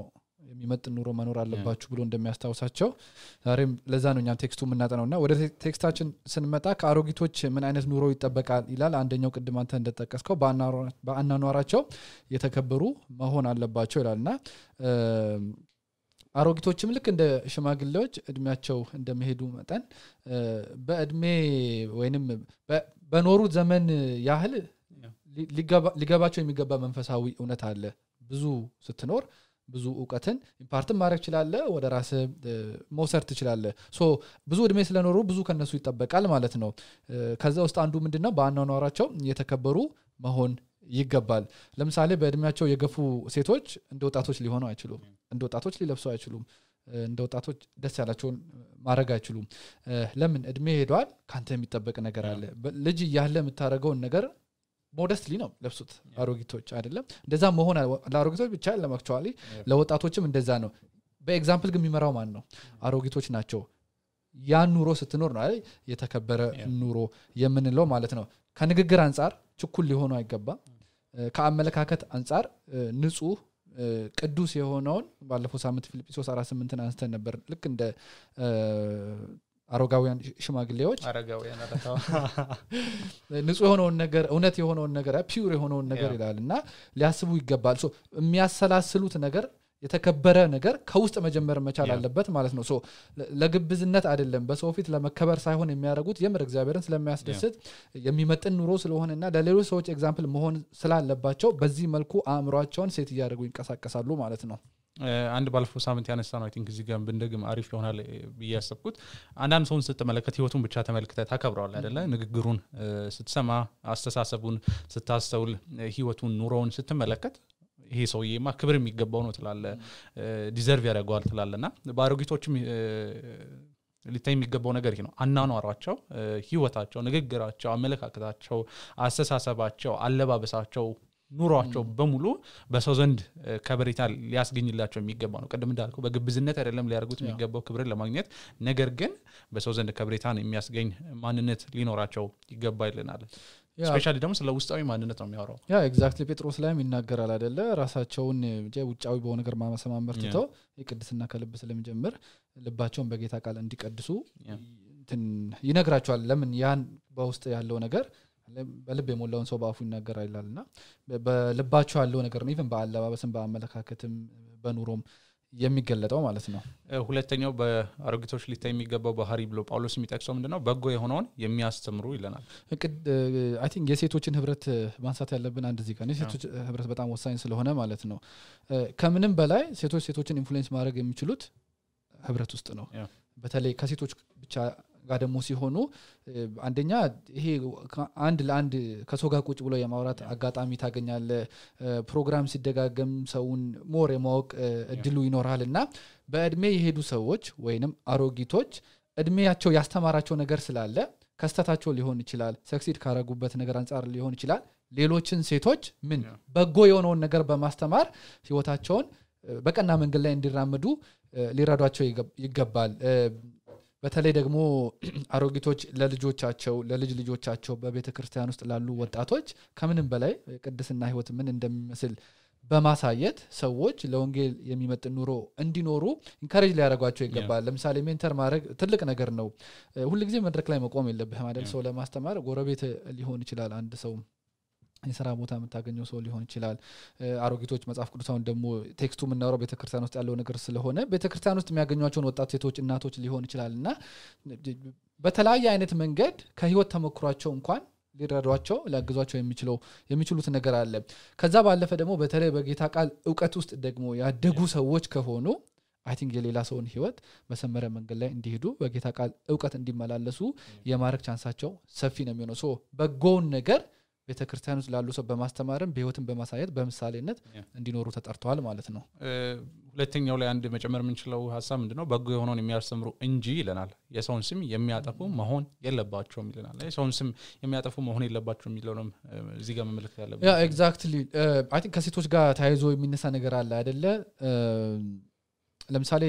የሚመጥን ኑሮ መኖር አለባችሁ ብሎ እንደሚያስታውሳቸው ዛሬም ለዛ ነው እኛም ቴክስቱ የምናጠናውና ወደ ቴክስታችን ስንመጣ ከአሮጊቶች ምን አይነት ኑሮ ይጠበቃል ይላል አንደኛው ቅድም አንተ እንደተጠቀስከው በአናኗራቸው የተከበሩ መሆን አለባቸው ይላልና አሮጊቶችም ልክ እንደ ሽማግሌዎች እድሜያቸው እንደመሄዱ መጠን በእድሜ ወይንም በኖሩት ዘመን ያህል ሊገባቸው የሚገባ መንፈሳዊ እውነት አለ ብዙ ስትኖር ብዙ ዕውቀትን ኢምፓርት ማድረግ ይችላል ወደ ራስ መውሰድ ትችላል ሶ ብዙ እድሜ ስለኖሩ ብዙ ከነሱ ይጠበቃል ማለት ነው ከዛ ውስጥ አንዱ ምንድነው በአናኗራቸው የተከበሩ መሆን ይገባል ለምሳሌ በእድሜያቸው የገፉ ሴቶች እንደ ወጣቶች ሊሆኑ አይችሉም እንደ ወጣቶች ሊለብሱ አይችሉም እንደ ወጣቶች ደስ ያላቸውን ማድረግ አይችሉም ለምን እድሜ ሄዷል ካንተ የሚጠበቅ ነገር አለ ልጅ ያለ የምታረገውን ነገር ሞደስትሊ ነው ለብሱት አሮጊቶች አይደለም እንደዛ መሆን ለአሮጊቶች ብቻ ለማክቹአሊ ለወጣቶችም እንደዛ ነው በኤግዛምፕል ግን የሚመራው ማን ነው አሮጊቶች ናቸው ያን ኑሮ ስትኖር ነው አይደል የተከበረ ኑሮ የምንለው ማለት ነው ከንግግር አንፃር ችኩል ሊሆኑ አይገባም ከአመለካከት አንፃር ንጹህ ቅዱስ የሆነውን ባለፈው ሳምንት ፊልጵስዩስ 4:8 አንስተን ነበር ልክ እንደ አሮጋውያን ሽማግሌዎች
አረጋውያን አረታው
ንጹህ የሆነውን ነገር እውነት የሆነውን ነገር ፒውር የሆነውን ነገር ይላልና ሊያስቡ ይገባል ሶ የሚያሰላስሉት ነገር የተከበረ ነገር ከውስጥ መጀመር መቻል አለበት ማለት ነው ሶ ለግብዝነት አይደለም በሰው ፊት ለመከበር ሳይሆን የሚያደርጉት የምር እግዚአብሔርን ስለሚያስደስት የሚመጥን ኑሮ ስለሆነና ለሌሎች ሰዎች ኤግዛምፕል መሆን ስላለባቸው በዚህ መልኩ አእምሮአቸውን ሴት ያደርጉ ይንቀሳቀሳሉ ማለት ነው
አንድ ባለፈው ሳምንት ያነሳ ነው አይ ቲንክ እዚህ ጋር ብንደግም አሪፍ ይሆናል ብያሰብኩት አንዳንድ ሰውን ስትመለከት ህይወቱን ብቻ ተመልክተህ ታከብረዋለህ አይደለ ንግግሩን ስትሰማ አስተሳሰቡን ስታስተውል ህይወቱን ኑሮውን ስትመለከት ይሄ ሰውዬማ ክብር የሚገባው ነው ትላለ ዲዘርቭ ያደርጋል ትላለና ባሮጊቶችም ሊታይ የሚገባው ነገር ይሄ ነው አናኗራቸው ህይወታቸው ንግግራቸው አመለካከታቸው አስተሳሰባቸው አለባበሳቸው ኑሯቸው በሙሉ በሰው ዘንድ ከበሬታ ሊያስገኝላቸው የሚገባ ነው ቀደም እንዳልኩ በግብዝነት አይደለም ሊያርጉት የሚገባው ክብርን ለማግኘት ነገር ግን በሰው ዘንድ ከበሬታን የሚያስገኝ ማንነት ሊኖራቸው ይገባይልናል ስፔሻሊ ደግሞ ስለ ውስጣዊ ማንነት ነው የሚያወራው
ያ ኤግዛክትሊ ጴጥሮስ ላይም ይናገራል አይደለ ራሳቸውን ውጫዊ በሆነ ነገር ማመሰማመር ትተው የቅድስና ከልብ ስለሚጀምር ልባቸውን በጌታ ቃል እንዲቀድሱ ይነግራቸዋል ለምን ያን በውስጥ ያለው ነገር በልብ የሞላውን ሰው በአፉ ይናገራል ይላልና በልባቸው ያለው ነገር ነው ኢቭን በአለባበስም በአመለካከትም በኑሮም የሚገለጠው ማለት ነው
ሁለተኛው በአሮጊቶች ሊታይ የሚገባው ባህሪ ብሎ ጳውሎስ የሚጠቅሰው ምንድነው በጎ የሆነውን የሚያስተምሩ ይለናል
አይ ቲንክ የሴቶችን ህብረት ማንሳት ያለብን አንድ እዚህ ጋር የሴቶች ህብረት በጣም ወሳኝ ስለሆነ ማለት ነው ከምንም በላይ ሴቶችን ኢንፍሉዌንስ ማድረግ የሚችሉት ህብረት ውስጥ ነው በተለይ ከሴቶች ብቻ ጋር ደግሞ ሲሆኑ አንደኛ ይሄ አንድ ለአንድ ከሰው ጋር ቁጭ ብሎ የማውራት አጋጣሚ ታገኛለ ፕሮግራም ሲደጋገም ሰውን ሞር የማወቅ እድሉ ይኖራልና በእድሜ የሄዱ ሰዎች ወይንም አሮጊቶች እድሜያቸው ያስተማራቸው ነገር ስላለ ከስተታቸው ሊሆን ይችላል ሰክሲድ ካረጉበት ነገር አንፃር ሊሆን ይችላል ሌሎችን ሴቶች ምን በጎ የሆነውን ነገር በማስተማር ህይወታቸውን በቀና መንገድ ላይ እንዲራመዱ ሊረዷቸው ይገባል በተለይ ደግሞ አሮጊቶች ለልጆቻቸው ለልጅ ልጆቻቸው በቤተክርስቲያን ውስጥ ላሉ ወጣቶች ከምንም በላይ ቅድስና ህይወት ምን እንደሚመስል በማሳየት ሰዎች ለወንጌል የሚመጥን ኑሮ እንዲኖሩ ኢንካሬጅ ሊያደርጓቸው ይገባል ለምሳሌ ሜንተር ማድረግ ትልቅ ነገር ነው ሁሉ ጊዜ መድረክ ላይ መቆም የለብህም አይደል ሰው ለማስተማር ጎረቤት ሊሆን ይችላል አንድ ሰው የሥራ ቦታ የምታገኘው ሰው ሊሆን ይችላል አሮጊቶች መጽሐፍ ቅዱሳውን ደግሞ ቴክስቱ ምናወራው ቤተክርስቲያን ውስጥ ያለው ነገር ስለሆነ ቤተክርስቲያን ውስጥ የሚያገኙዋቸውን ወጣት ሴቶች እናቶች ሊሆን ይችላልና በተለያየ አይነት መንገድ ከህይወት ተመክሯቸው እንኳን ሊረዷቸው ሊያግዟቸው የሚችሉት ነገር አለ ከዛ ባለፈ ደግሞ በተለይ በጌታ ቃል ዕውቀት ውስጥ ደግሞ ያደጉ ሰዎች ከሆኑ አይ ቲንክ የሌላ ሰውን ህይወት በሰመረ መንገድ ላይ እንዲሄዱ በጌታ ቃል ዕውቀት እንዲመላለሱ የማረክ ቻንሳቸው ሰፊ ነው የሚሆነው ሶ በጎውን ነገር ቤተክርስቲያን ውስጥ ላሉ ሰው በማስተማርም በህይወትም በማሳየት በምሳሌነት እንዲኖሩ ተጠርተዋል ማለት ነው
ሁለተኛው ላይ አንድ መጨመር የምንችለው ሐሳብ ምንድነው በጎ የሆነውን የሚያስተምሩ እንጂ ይለናል የሰውን ስም የሚያጠፉ መሆን የለባቸውም ይለናል የሰውን ስም የሚያጠፉ መሆን የለባቸውም የሚለውንም እዚህ ጋር መመልከት ያለብን
ያ ኤግዛክትሊ አይ ቲንክ ከሴቶች ጋር ታይዞ የሚነሳ ነገር አለ አይደለ ለምሳሌ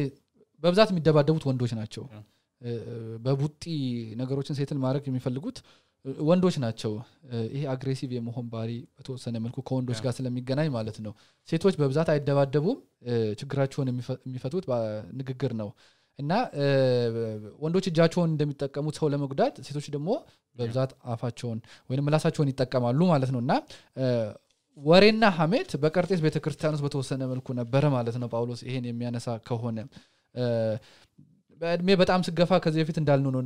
በብዛት የሚደባደቡት ወንዶች ናቸው በቡጢ ነገሮችን ሴትል ማድረግ የሚፈልጉት ወንዶች ናቸው ይሄ አግሬሲቭ የመሆን ባሪ በተወሰነ መልኩ ከወንዶች ጋር ስለሚገናኝ ማለት ነው ሴቶች በብዛት አይደባደቡም ችግራቸውን የሚፈቱት በንግግር ነው እና ወንዶች እጃቸውን እንደሚጠቀሙት ሰው ለመጉዳት ሴቶች ደግሞ በብዛት አፋቸውን ወይንም ምላሳቸውን ይጠቀማሉ ማለት ነውና ወሬና ሐሜት በቀርጤስ ቤተክርስቲያን ውስጥ በተወሰነ መልኩ ነበር ማለት ነው ጳውሎስ ይሄን የሚያነሳ ከሆነ በእድሜ በጣም ስገፋ ከዚህ በፊት እንዳልነው ነው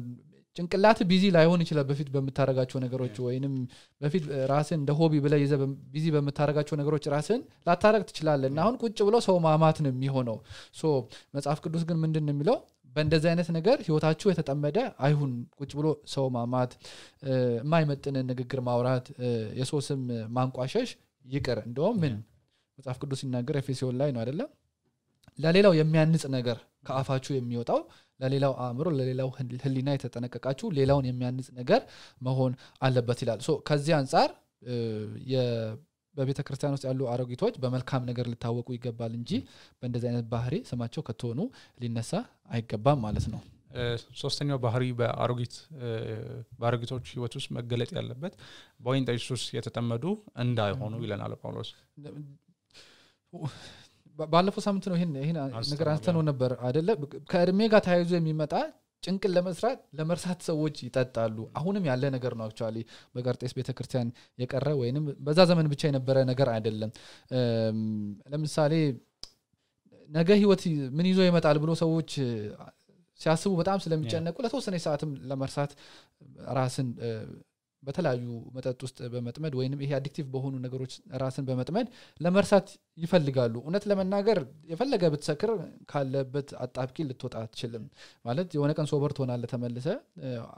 ጭንቅላት ቢዚ ላይሆን ይችላል በፊት በመታረጋቸው ነገሮች ወይንም በፊት ራስን እንደ ሆቢ ብለህ ይዘህ ቢዚ በመታረጋቸው ነገሮች ራስን ላታረግ ትችላለህና አሁን ቁጭ ብሎ ሰው ማማት ነው የሚሆነው ሶ መጽሐፍ ቅዱስ ግን ምንድነው የሚለው በእንደዚህ አይነት ነገር ህይወታችሁ የተጠመደ አይሁን ቁጭ ብሎ ሰው ማማት የማይመጥን ንግግር ማውራት የሰው ስም ማንቋሸሽ ይቅር እንደውም ምን መጽሐፍ ቅዱስ ሲናገር ኤፌሶን ላይ ነው አይደለም ለሌላው የሚያንጽ ነገር ከአፋችሁ የሚወጣው ለሌላው አእምሮ ለሌላው ህሊና የተጠነቀቃችሁ ሌላውን የሚያንጽ ነገር መሆን አለበት ይላል ሶ ከዚህ አንፃር በቤተክርስቲያን ውስጥ ያሉ አሮጊቶች በመልካም ነገር ሊታወቁ ይገባል እንጂ በእንደዚህ አይነት ባህሪ ስማቸው ከተሆኑ ሊነሳ አይገባም ማለት ነው
ሶስተኛው ባህሪ በአሮጊቶች ህይወት ውስጥ መገለጥ ያለበት በወይን ጠጅ ሱስ የተጠመዱ እንዳይሆኑ ይለናል ጳውሎስ
ባለፈው ሳምንት ነው ይሄን ነገር አንስተነው ነበር አይደለ ከእድሜ ጋር ታይዞ የሚመጣ ጭንቅል ለመርሳት ሰዎች ይጠጣሉ አሁንም ያለ ነገር ነው አክቹአሊ በቀርጤስ ቤተክርስቲያን የቀረ ወይንም በዛ ዘመን ብቻ የነበረ ነገር አይደለም ለምሳሌ ነገ ህይወት ምን ይዞ ይመጣል ብሎ ሰዎች ሲያስቡ በጣም ስለሚጨነቁ ለተወሰነ ሰዓትም ለመርሳት ራስን በተለያዩ መጠጥ ውስጥ በመጥመድ ወይንም ይሄ አዲክቲቭ በሆኑ ነገሮች ራስን በመጥመድ ለመርሳት ይፈልጋሉ እውነት ለመናገር የፈለገ ብትሰክር ካለበት አጣብቂ ልትወጣ አትችልም ማለት የሆነ ቀን ሶበር ትሆናለህ ተመልሰ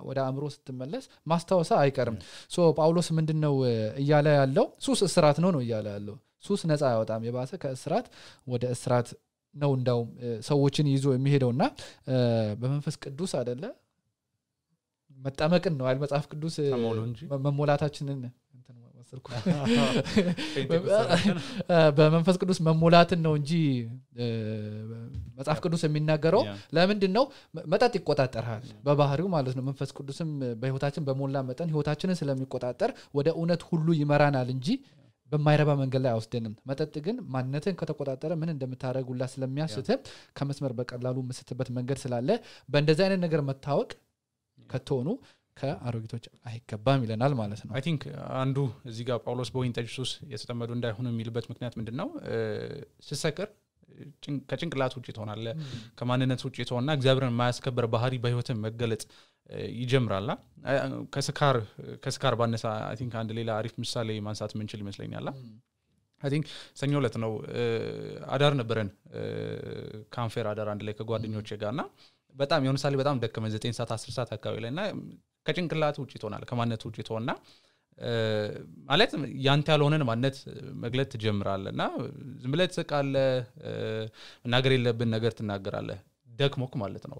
ወደ አእምሮ ስትመለስ ማስታወሳ አይቀርም ሶ ጳውሎስ ምንድነው እያለ ያለው ሱስ እስራት ነው እያለ ያለው ሱስ ነፃ ያወጣም የባሰ ከእስራት ወደ እስራት ነው እንዳው ሰዎችን ይዞ የሚሄደውና በመንፈስ ቅዱስ አይደለ መጣመቅን ነው አይደል መጽሐፍ ቅዱስ መሞላታችንን እንትን ወሰልኩ በመንፈስ ቅዱስ መሞላትን ነው እንጂ መጽሐፍ ቅዱስ የሚናገረው ለምንድን ነው መጠጥ ይቆጣጣራል በባህሪው ማለት ነው መንፈስ ቅዱስም በህይወታችን በሞላ መጠን ህይወታችንን ስለሚቆጣጣር ወደ እውነት ሁሉ ይመራናል እንጂ በማይረባ መንገድ ላይ አውስደንም መጠጥ ግን ማንነትን ከተቆጣጠረ ምን እንደምታረጉላ ስለሚያስተ ከመስመር በቀላሉ መስተበት መንገድ ስላለ በእንደዚህ አይነት ነገር መታወቅ ከተሆኑ ከአሮጊቶች አይገባም ይለናል ማለት ነው
አይ ቲንክ አንዱ እዚህ ጋር ጳውሎስ በወይን ጠጅ ሱስ የተጠመዱ እንዳይሆኑ የሚልበት ምክንያት ምንድነው ሲሰከር ከጭንቅላት ውጪ ትሆናለህ ከማንነት ውጪ ትሆንና እግዚአብሔርን የማያስከብር ባህሪ በህይወት መገለጥ ይጀምራልና ከስካር ባነሳ አይ ቲንክ አንድ ሌላ አሪፍ ምሳሌ ማንሳት ምንችል ይመስለኛል አይ ቲንክ ሰኞ ዕለት ነው አዳር ነበረን ካንፌር አዳር አንድ ላይ ከጓደኞቼ ጋርና በጣም የሆነ ሳሊ በጣም ደከመን 9 ሰዓት 10 ሰዓት አካባቢ ላይና ከጭንቅላት ውጪ ትሆናለህ ከማንነት ውጪ ትሆንና ማለት ያንተ ያልሆነን ማንነት መግለጥ ትጀምራለህና ዝም ብለህ ትስቃለህ መናገር የለብን ነገር ትናገራለህ ደክሞክ ማለት ነው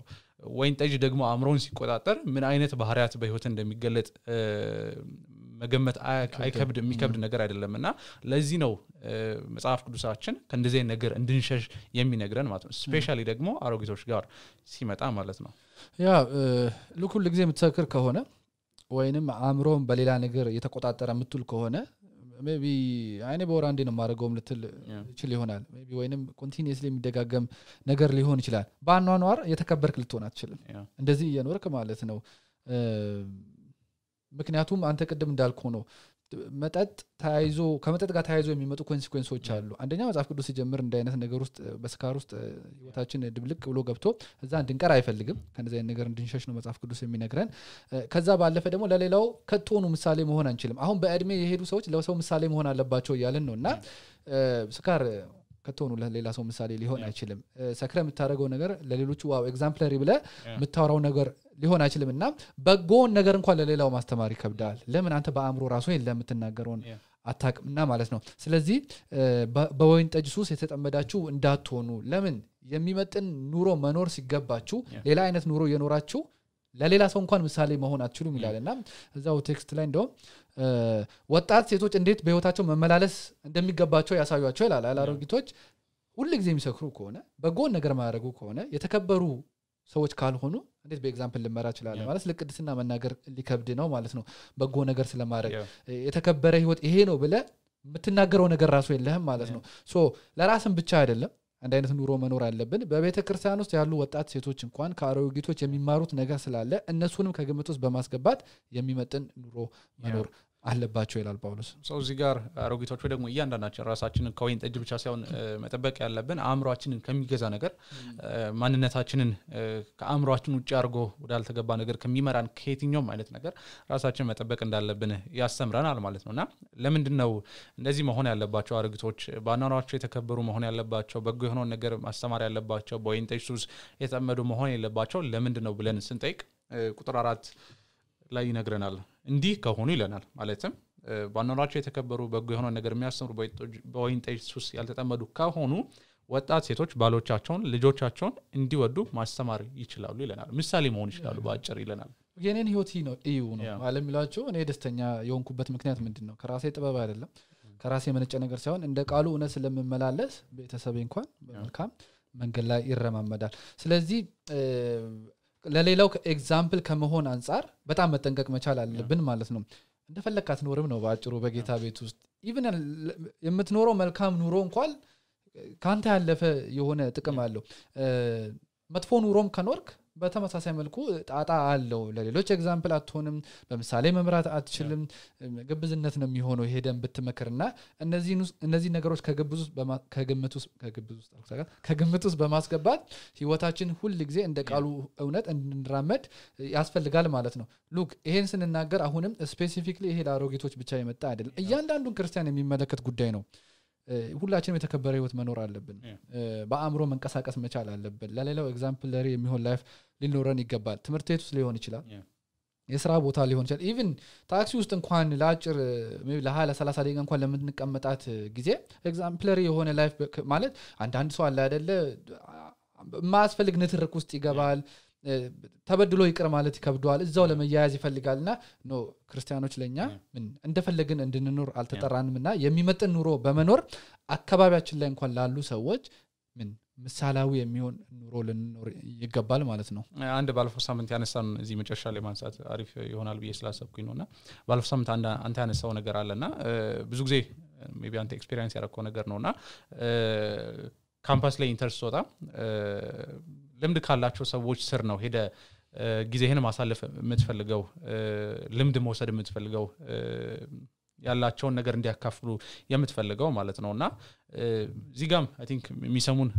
ወይን ጠጅ ደግሞ አምሮን ሲቆጣጠር ምን አይነት ባህሪያት በህይወት እንደሚገለጥ መገመት አይከብድ የሚከብድ ነገር አይደለምና ለዚህ ነው መጽሐፍ ቅዱሳችን ከእንደዚህ ነገር እንድንሸሽ የሚነግረን ማለት ነው ስፔሻሊ ደግሞ አሮጊቶች ጋር ሲመጣ ማለት ነው
ያ ለኩል ጊዜ የምትሰክር ከሆነ ወይንም አምሮን በሌላ ነገር የተቆጣጠረ ምትል ከሆነ ሜቢ አይኔ በወራንዴ ነው ማረጋውም ልትል ይችላል ይሆናል ሜቢ ወይንም ኮንቲኒየስሊ የሚደጋገም ነገር ሊሆን ይችላል ባኗኗር የተከበርክ ልትሆን አትችልም እንደዚህ እየኖርክ ማለት ነው ምክንያቱም አንተ ቅድም እንዳልኩ ነው መጠጥ ታይዞ ከመጠጥ ጋር ታይዞ የሚመጡ ኮንሲኩዌንሶች አሉ አንደኛ መጽሐፍ ቅዱስ ሲጀምር እንደ አይነት ነገር ውስጥ በስካር ውስጥ ህይወታችን ድብልቅ ብሎ ገብቶ እዛ እንድንቀር አይፈልግም ከነዚህ አይነት ነገር እንድንሸሽ ነው መጽሐፍ ቅዱስ የሚነግረን ከዛ ባለፈ ደግሞ ለሌላው ከቶኑ ምሳሌ መሆን አንችልም አሁን በእድሜ የሄዱ ሰዎች ለሰው ምሳሌ መሆን አለባቸው ይያልን ነውና ስካር ከቶኑ ለሌላ ሰው ምሳሌ ሊሆን አይችልም ሰክረ የምታረገው ነገር ለሌሎቹ ዋው ኤግዛምፕለሪ ብለ የምታወራው ነገር ሊሆን አይችልምና በጎን ነገር እንኳን ለሌላው ማስተማር ይከብዳል ለምን አንተ በአእምሮ ራሱ የለም የምትናገረውን አታቅምና ማለት ነው ስለዚህ በወይን ጠጅ ሱስ የተጠመዳችሁ እንዳትሆኑ ለምን የሚመጥን ኑሮ መኖር ሲገባችሁ ሌላ አይነት ኑሮ የኖራችሁ ለሌላ ሰው እንኳን ምሳሌ መሆን አትችሉም ይላልና እዛው ቴክስት ላይ እንደው ወጣት ሴቶች እንዴት በህይወታቸው መመላለስ እንደሚገባቸው ያሳዩአቸው ይላል አላሮጊቶች ሁሉ ጊዜ የሚሰክሩ ከሆነ በጎን ነገር ማያረጉ ከሆነ የተከበሩ ሰዎች ካልሆኑ እንዴት በኤግዛምፕል ልመራ ይችላል ማለት ለቅድስና መናገር ሊከብድ ነው ማለት ነው በጎ ነገር ስለማረግ የተከበረ ህይወት ይሄ ነው ብለ የምትናገረው ነገር ራሱ የለህም ማለት ነው ሶ ለራስን ብቻ አይደለም አንድ አይነት ኑሮ መኖር አለብን በቤተ ክርስቲያን ውስጥ ያሉ ወጣት ሴቶች እንኳን ከአሮጊቶች የሚማሩት ነገር ስላለ እነሱንም ከግምት ውስጥ በማስገባት የሚመጥን ኑሮ መኖር አለባቸው ይላል ጳውሎስ
ሶ እዚህ ጋር አሮጊቶች ደግሞ እያንዳንዳችን ራሳችንን ከወይን ጠጅ ብቻ ሳይሆን መጠበቅ ያለብን አእምሮአችንን ከሚገዛ ነገር ማንነታችንን ከአእምሮአችን ውጪ አርጎ ወዳልተገባ ነገር ከሚመራን ከየትኛውም አይነት ነገር ራሳችንን መጠበቅ እንዳለብን ያስተምረናል ማለት ነውና ለምንድነው እንደዚህ መሆን ያለባቸው አሮጊቶች ባናናቸው የተከበሩ መሆን ያለባቸው በጎ የሆነ ነገር ማስተማር ያለባቸው በወይን ጠጅ ሱስ የተጠመዱ መሆን የለባቸው ለምንድነው ብለን ስንጠይቅ ቁጥር 4 ላይ ይነግረናል እንዲህ ከሆኑ ይለናል ማለትም ባናናቸው የተከበሩ በጎ የሆነ ነገር የሚያስተምሩ በወይን ጠጅ ሱስ ያልተጠመዱ ከሆኑ ወጣት ሴቶች ባሎቻቸውን ልጆቻቸውን እንዲወዱ ማስተማር ይችላሉ ይለናል ምሳሌ መሆን ይችላሉ ባጭር ይለናል
የኔን ህይወት ነው እዩ ነው ማለት ሚላቸው እኔ ደስተኛ የሆንኩበት ምክንያት ምንድነው ከራሴ ጥበብ አይደለም ከራሴ መነጨ ነገር ሳይሆን እንደ ቃሉ እውነት ስለምመላለስ ቤተሰቤ እንኳን በመልካም መንገድ ላይ ይረማመዳል ስለዚህ ለሌላው ኤግዛምፕል ከመሆን አንፃር በጣም መጠንቀቅ መቻል አለብን ማለት ነው እንደፈለካት ኖርም ነው ባጭሩ በጌታ ቤት ውስጥ ኢቭን የምትኖረው መልካም ኑሮ እንኳን ካንተ ያለፈ የሆነ ጥቅም አለው መጥፎ ኑሮም ከኖርክ በተመሳሳይ መልኩ ጣጣ አለው ለሌሎች ኤግዛምፕል አትሆንም በመሳሌ መምራት አትችልም ግብዝነት ነው የሚሆነው ሄደን ብትመከርና እነዚህ ነገሮች ከግምት ውስጥ በማስገባት ህይወታችን ሁሉ ጊዜ እንደ ቃሉ እውነት እንድንራመድ ያስፈልጋል ማለት ነው ሉክ ይሄን ስንናገር አሁንም ስፔሲፊክሊ ይሄ ለአሮጊቶች ብቻ የመጣ አይደለም እያንዳንዱን ክርስቲያን የሚመለከት ጉዳይ ነው ሁላችንም የተከበረ ህይወት መኖር አለብን በአእምሮ መንቀሳቀስ መቻል አለብን ለሌላው ኤግዛምፕለሪ የሚሆን ላይፍ ሊኖረን ይገባል ትምህርት ቤት ውስጥ ሊሆን ይችላል የሥራ ቦታ ሊሆን ይችላል ኢቭን ታክሲ ውስጥ እንኳን ለአጭር ለ20 30 ደቂቃ እንኳን ለምንቀመጣት ጊዜ ኤግዛምፕለሪ የሆነ ላይፍ ማለት አንድ ሰው አለ አይደለ ማስፈልግ ንትርክ ውስጥ ይገባል ተበድሎ ይቅር ማለት ይከብደዋል እዛው ለመያያዝ ይፈልጋልና ኖ ክርስቲያኖች ለኛ ምን እንደፈለግን እንድንኖር አልተጠራንምና የሚመጥን ኑሮ በመኖር አካባቢያችን ላይ እንኳን ላሉ ሰዎች ምን ምሳሌው የሚሆን ኑሮ ልንኖር ይገባል ማለት ነው
አንድ ባለፈው ሳምንት ያነሳን እዚህ መጨረሻ ላይ ማንሳት አሪፍ ይሆናል ብዬ ስላሰብኩኝ ነውና ባለፈው ሳምንት አንተ ያነሳው ነገር አለና ብዙ ጊዜ ሜቢ አንተ ኤክስፒሪየንስ ያደረከው ነገር ነውና ካምፓስ ላይ ኢንተርስ ወጣ ልምድ ካላቸው ሰዎች ስር ነው ሄደ ጊዜህን ማሳለፍ የምትፈልገው ልምድ መውሰድ የምትፈልገው ያላቸውን ነገር እንዲያካፍሉ የምትፈልገው ማለት ነውና እዚህ ጋም አይ ቲንክ የሚሰሙን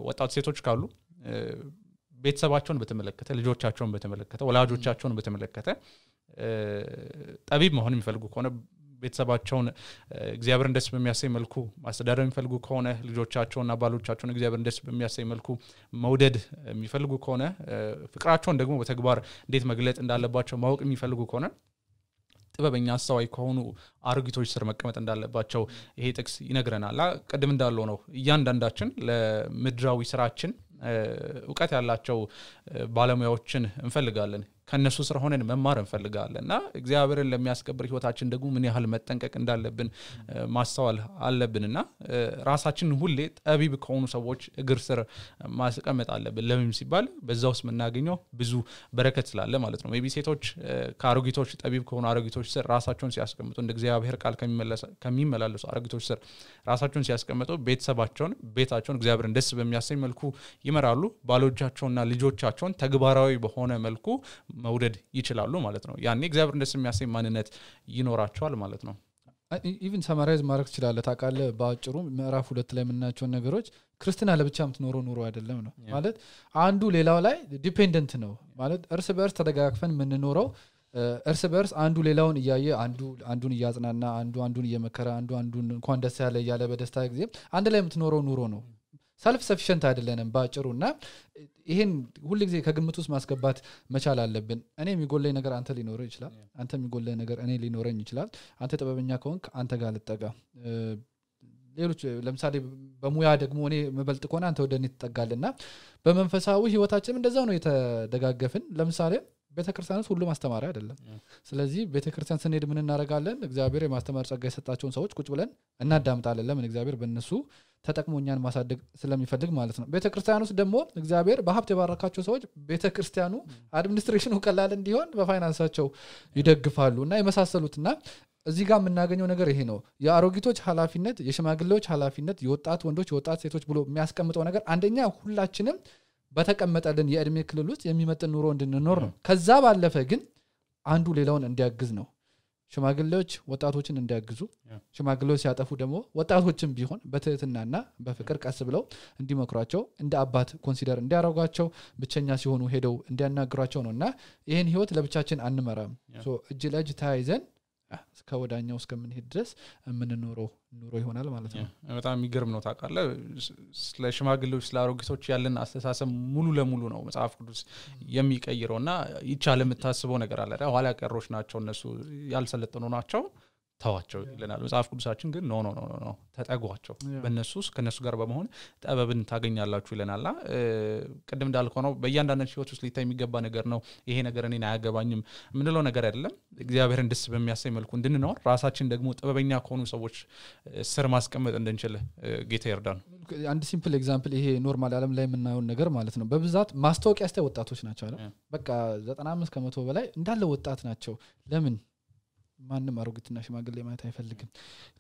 ወጣት ሴቶች ካሉ ቤተሰባቸውን በተመለከተ ልጆቻቸውን በተመለከተ ወላጆቻቸውን በተመለከተ ጠቢብ መሆን የሚፈልጉ ከሆነ ቤተሰባቸውን እግዚአብሔርን ደስ በሚያሰኝ መልኩ ማስተዳደር የሚፈልጉ ከሆነ ልጆቻቸውና ባሎቻቸውን እግዚአብሔርን ደስ በሚያሰኝ መልኩ መውደድ የሚፈልጉ ከሆነ ፍቅራቸውን ደግሞ በተግባር እንዴት መግለጽ እንዳለባቸው ማወቅ የሚፈልጉ ከሆነ ጥበበኛ አስተዋይ ከሆኑ አሮጊቶች ስር መቀመጥ እንዳለባቸው ይሄ ጥቅስ ይነግረናል። ቀደም እንዳለው ነው እያንዳንዳችን ለምድራዊ ስራችን ዕውቀት ያላቸው ባለሙያዎችን እንፈልጋለን ከነሱ ስር ሆነን መማር እንፈልጋለንና እግዚአብሔርን ለሚያስከብር ህይወታችን ደግሞ ምን ያህል መጠንቀቅ እንዳለብን ማስተዋል አለብንና ራሳችንን ሁሌ ጠቢብ ከሆኑ ሰዎች እግር ስር ማስቀመጥ አለብን። ለምን ሲባል በዛውስ መናገኘው ብዙ በረከት ስላለ ማለት ነው። ሜቢ ሴቶች ከአሮጊቶች ጠቢብ ከሆኑ አሮጊቶች ስር ራሳቸውን ሲያስቀምጡ እንደ እግዚአብሔር ቃል ከሚመላለሱ አሮጊቶች ስር ራሳቸውን ሲያስቀምጡ ቤታቸውን እግዚአብሔርን ደስ በሚያሰኝ መልኩ ይመራሉ። ባሎቻቸውና ልጆቻቸውን ተግባራዊ በሆነ መልኩ መውደድ ይችላሉ ማለት ነው። ያኔ እግዚአብሔር ደስ የሚያሰኝ ማንነት ይኖራቸዋል ማለት ነው።
ኢቭን ሰማራይዝ ማድረግ ይችላል። ታውቃለህ በአጭሩ ምዕራፍ 2 ላይ የምናያቸው ነገሮች ክርስቲና ለብቻ የምትኖረው ኑሮ አይደለም ነው ማለት አንዱ ሌላው ላይ ዲፔንደንት ነው ማለት እርስ በርስ ተደጋግፈን የምንኖረው እርስ በርስ አንዱ ሌላውን እያየ አንዱን እያጽናና አንዱን እየመከረ አንዱን እንኳን ደስ ያለ እያለ በደስታ ጊዜ አንድ ላይ የምትኖረው ኑሮ ነው። ሰልፍ ሰፊሸንት አይደለንም ባጭሩና ይሄን ሁሉ ጊዜ ከግምት ውስጥ ማስገባት መቻል አለብን። እኔ የሚጎለኝ ነገር አንተ ሊኖር ይችላል፣ አንተ የሚጎለኝ ነገር እኔ ሊኖረኝ ይችላል። አንተ ጥበበኛ ከሆንክ አንተ ጋር ልጠጋ። ሌሎች ለምሳሌ በሙያ ደግሞ እኔ መበልጥ ከሆነ አንተ ወደኔ ትጠጋልና በመንፈሳዊ ህይወታችንም እንደዛው ነው የተደጋገፍን። ለምሳሌ ቤተክርስቲያን ሁሉ ማስተማሪያ አይደለም። ስለዚህ ቤተክርስቲያን ስንሄድ ምን እናረጋለን? እግዚአብሔር የማስተማር ጸጋ የሰጣቸውን ሰዎች ቁጭ ብለን እናዳምጣለን። ለምን? እግዚአብሔር በእነሱ ተጠቅሞኛን ማሳደግ ስለሚፈልግ ማለት ነው። ቤተክርስቲያን ውስጥ ደግሞ እግዚአብሔር በሀብት የባረካቸው ሰዎች ቤተክርስቲያኑ አድሚኒስትሬሽኑ ቀላል እንዲሆን በፋይናንሳቸው ይደግፋሉና የመሳሰሉትና እዚህ ጋር የምናገኘው ነገር ይሄ ነው። የአሮጊቶች ኃላፊነት፣ የሽማግሌዎች ኃላፊነት፣ የወጣት ወንዶች የወጣት ሴቶች ብሎ የሚያስቀምጠው ነገር አንደኛ ሁላችንም በተቀመጠልን የእድሜ ክልል ውስጥ የሚመጥን ኑሮ እንድንኖር ነው። ከዛ ባለፈ ግን አንዱ ሌላውን እንዲያግዝ ነው። ሽማግሌዎች ወጣቶችን እንዲያግዙ፣ ሽማግሌዎች ሲያጠፉ ደግሞ ወጣቶችን ቢሆን በትህትናና በፍቅር ቀስ ብለው እንዲመክሯቸው፣ እንደ አባት ኮንሲደር እንዲያረጋቸው፣ ብቸኛ ሲሆኑ ሄደው እንዲያናግሯቸው ነውና ይሄን ህይወት ለብቻችን አንመራም። እጅ ለእጅ ተያይዘን ከወዳኛው እስከምንሄድ ድረስ የምንኖረው ኑሮ ይሆናል ማለት ነው።
በጣም የሚገርም ነው። ታውቃለህ ስለ ሽማግሌዎች ስለ አሮጊቶች ያለን አስተሳሰብ ሙሉ ለሙሉ ነው መጽሐፍ ቅዱስ የሚቀይረውና ይቻል የምታስበው ነገር አለ። ኋላ ቀሮች ናቸው እነሱ ያልሰለጠኑ ናቸው ተዋቸው ይለናል መጽሐፍ ቅዱሳችን። ግን ኖ ተጠጓቸው፣ በእነሱስ ከነሱ ጋር በመሆን ጠበብን ታገኛላችሁ ይለናልና ቅድም እንዳልከው ነው በእያንዳንዳችን ህይወት ውስጥ ሊታይ የሚገባ ነገር ነው። ይሄ ነገር እኔን አያገባኝም ምንለው ነገር አይደለም። እግዚአብሔርን ደስ በሚያሰኝ መልኩ እንድንኖር ራሳችን ደግሞ ጥበበኛ ከሆኑ ሰዎች ስር ማስቀመጥ እንድንችል ጌታ ይርዳን።
አንድ ሲምፕል ኤግዛምፕል ይሄ ኖርማል ዓለም ላይ የምናየው ነገር ማለት ነው። በብዛት ማስታወቂያ ያስተ ወጣቶች ናቸው አይደል? በቃ 95% በላይ እንዳለ ወጣት ናቸው። ለምን? ማንም አሮጊትና ሽማግሌ ማለት አይፈልግም።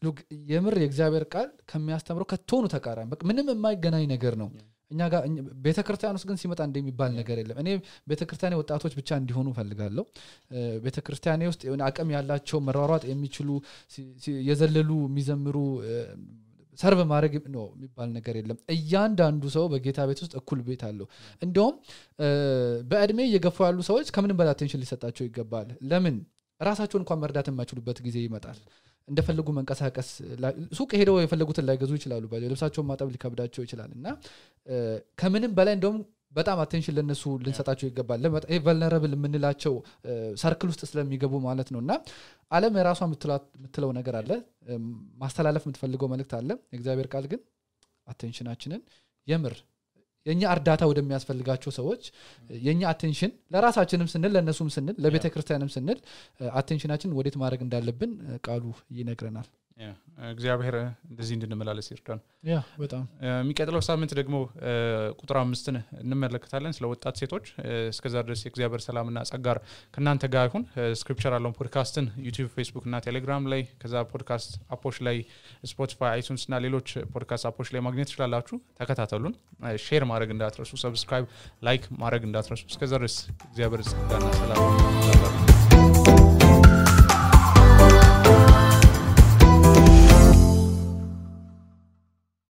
ሉክ የምር የእግዚአብሔር ቃል ከሚያስተምረው ከቶኑ ተቃራኒ በቃ ምንም የማይገናኝ ነገር ነው። እኛ ጋር ቤተክርስቲያን ውስጥ ግን ሲመጣ እንደሚባል ነገር የለም። እኔ ቤተክርስቲያኔ ወጣቶች ብቻ እንዲሆኑ ፈልጋለሁ። ቤተክርስቲያኔ ውስጥ የሆነ አቅም ያላቸው መሯሯጥ የሚችሉ የዘለሉ የሚዘምሩ ሰርቭ ማድረግ ነው የሚባል ነገር የለም። እያንዳንዱ ሰው በጌታ ቤት ውስጥ እኩል ቤት አለው። እንደውም በእድሜ እየገፉ ያሉ ሰዎች ከምንም በላይ አቴንሽን ሊሰጣቸው ይገባል። ለምን? ራሳቸውን እንኳን መርዳት የማይችሉበት ጊዜ ይመጣል። እንደፈለጉ መንቀሳቀስ ሱቅ ሄደው የፈለጉትን ላይገዙ ይችላሉ። ልብሳቸውን ማጠብ ሊከብዳቸው ይችላልና ከምንም በላይ እንደውም በጣም አቴንሽን ለነሱ ልንሰጣቸው ይገባል። ይሄ ቨልነራብል የምንላቸው ሰርክል ውስጥ ስለሚገቡ ማለት ነውና ዓለም የራሷ የምትለው ነገር አለ፣ ማስተላለፍ የምትፈልገው መልእክት አለ። የእግዚአብሔር ቃል ግን አቴንሽናችንን የምር የኛ እርዳታ ወደሚያስፈልጋቸው ሰዎች የኛ አቴንሽን ለራሳችንም ስንል ለነሱም ስንል ለቤተክርስቲያንም ስንል አቴንሽናችን ወዴት ማድረግ እንዳለብን ቃሉ ይነግረናል። እግዚአብሔር እንደዚህ እንድንመላለስ ይርዳን። በጣም
የሚቀጥለው ሳምንት ደግሞ ቁጥር 5ን እንመለከታለን ስለ ወጣት ሴቶች። እስከዛ ድረስ የእግዚአብሔር ሰላምና ጸጋ ከናንተ ጋር ይሁን። ስክሪፕቸር አሎን ፖድካስትን ዩቲዩብ፣ ፌስቡክ እና ቴሌግራም ላይ ከዛ ፖድካስት አፖች ላይ ስፖቲፋይ፣ አይቱንስ እና ሌሎች ፖድካስት አፖች ላይ ማግኘት ትችላላችሁ። ተከታተሉን። ሼር ማድረግ እንዳትረሱ፣ ሰብስክራይብ፣ ላይክ ማድረግ እንዳትረሱ። እስከዛ ድረስ እግዚአብሔር ጸጋና ሰላም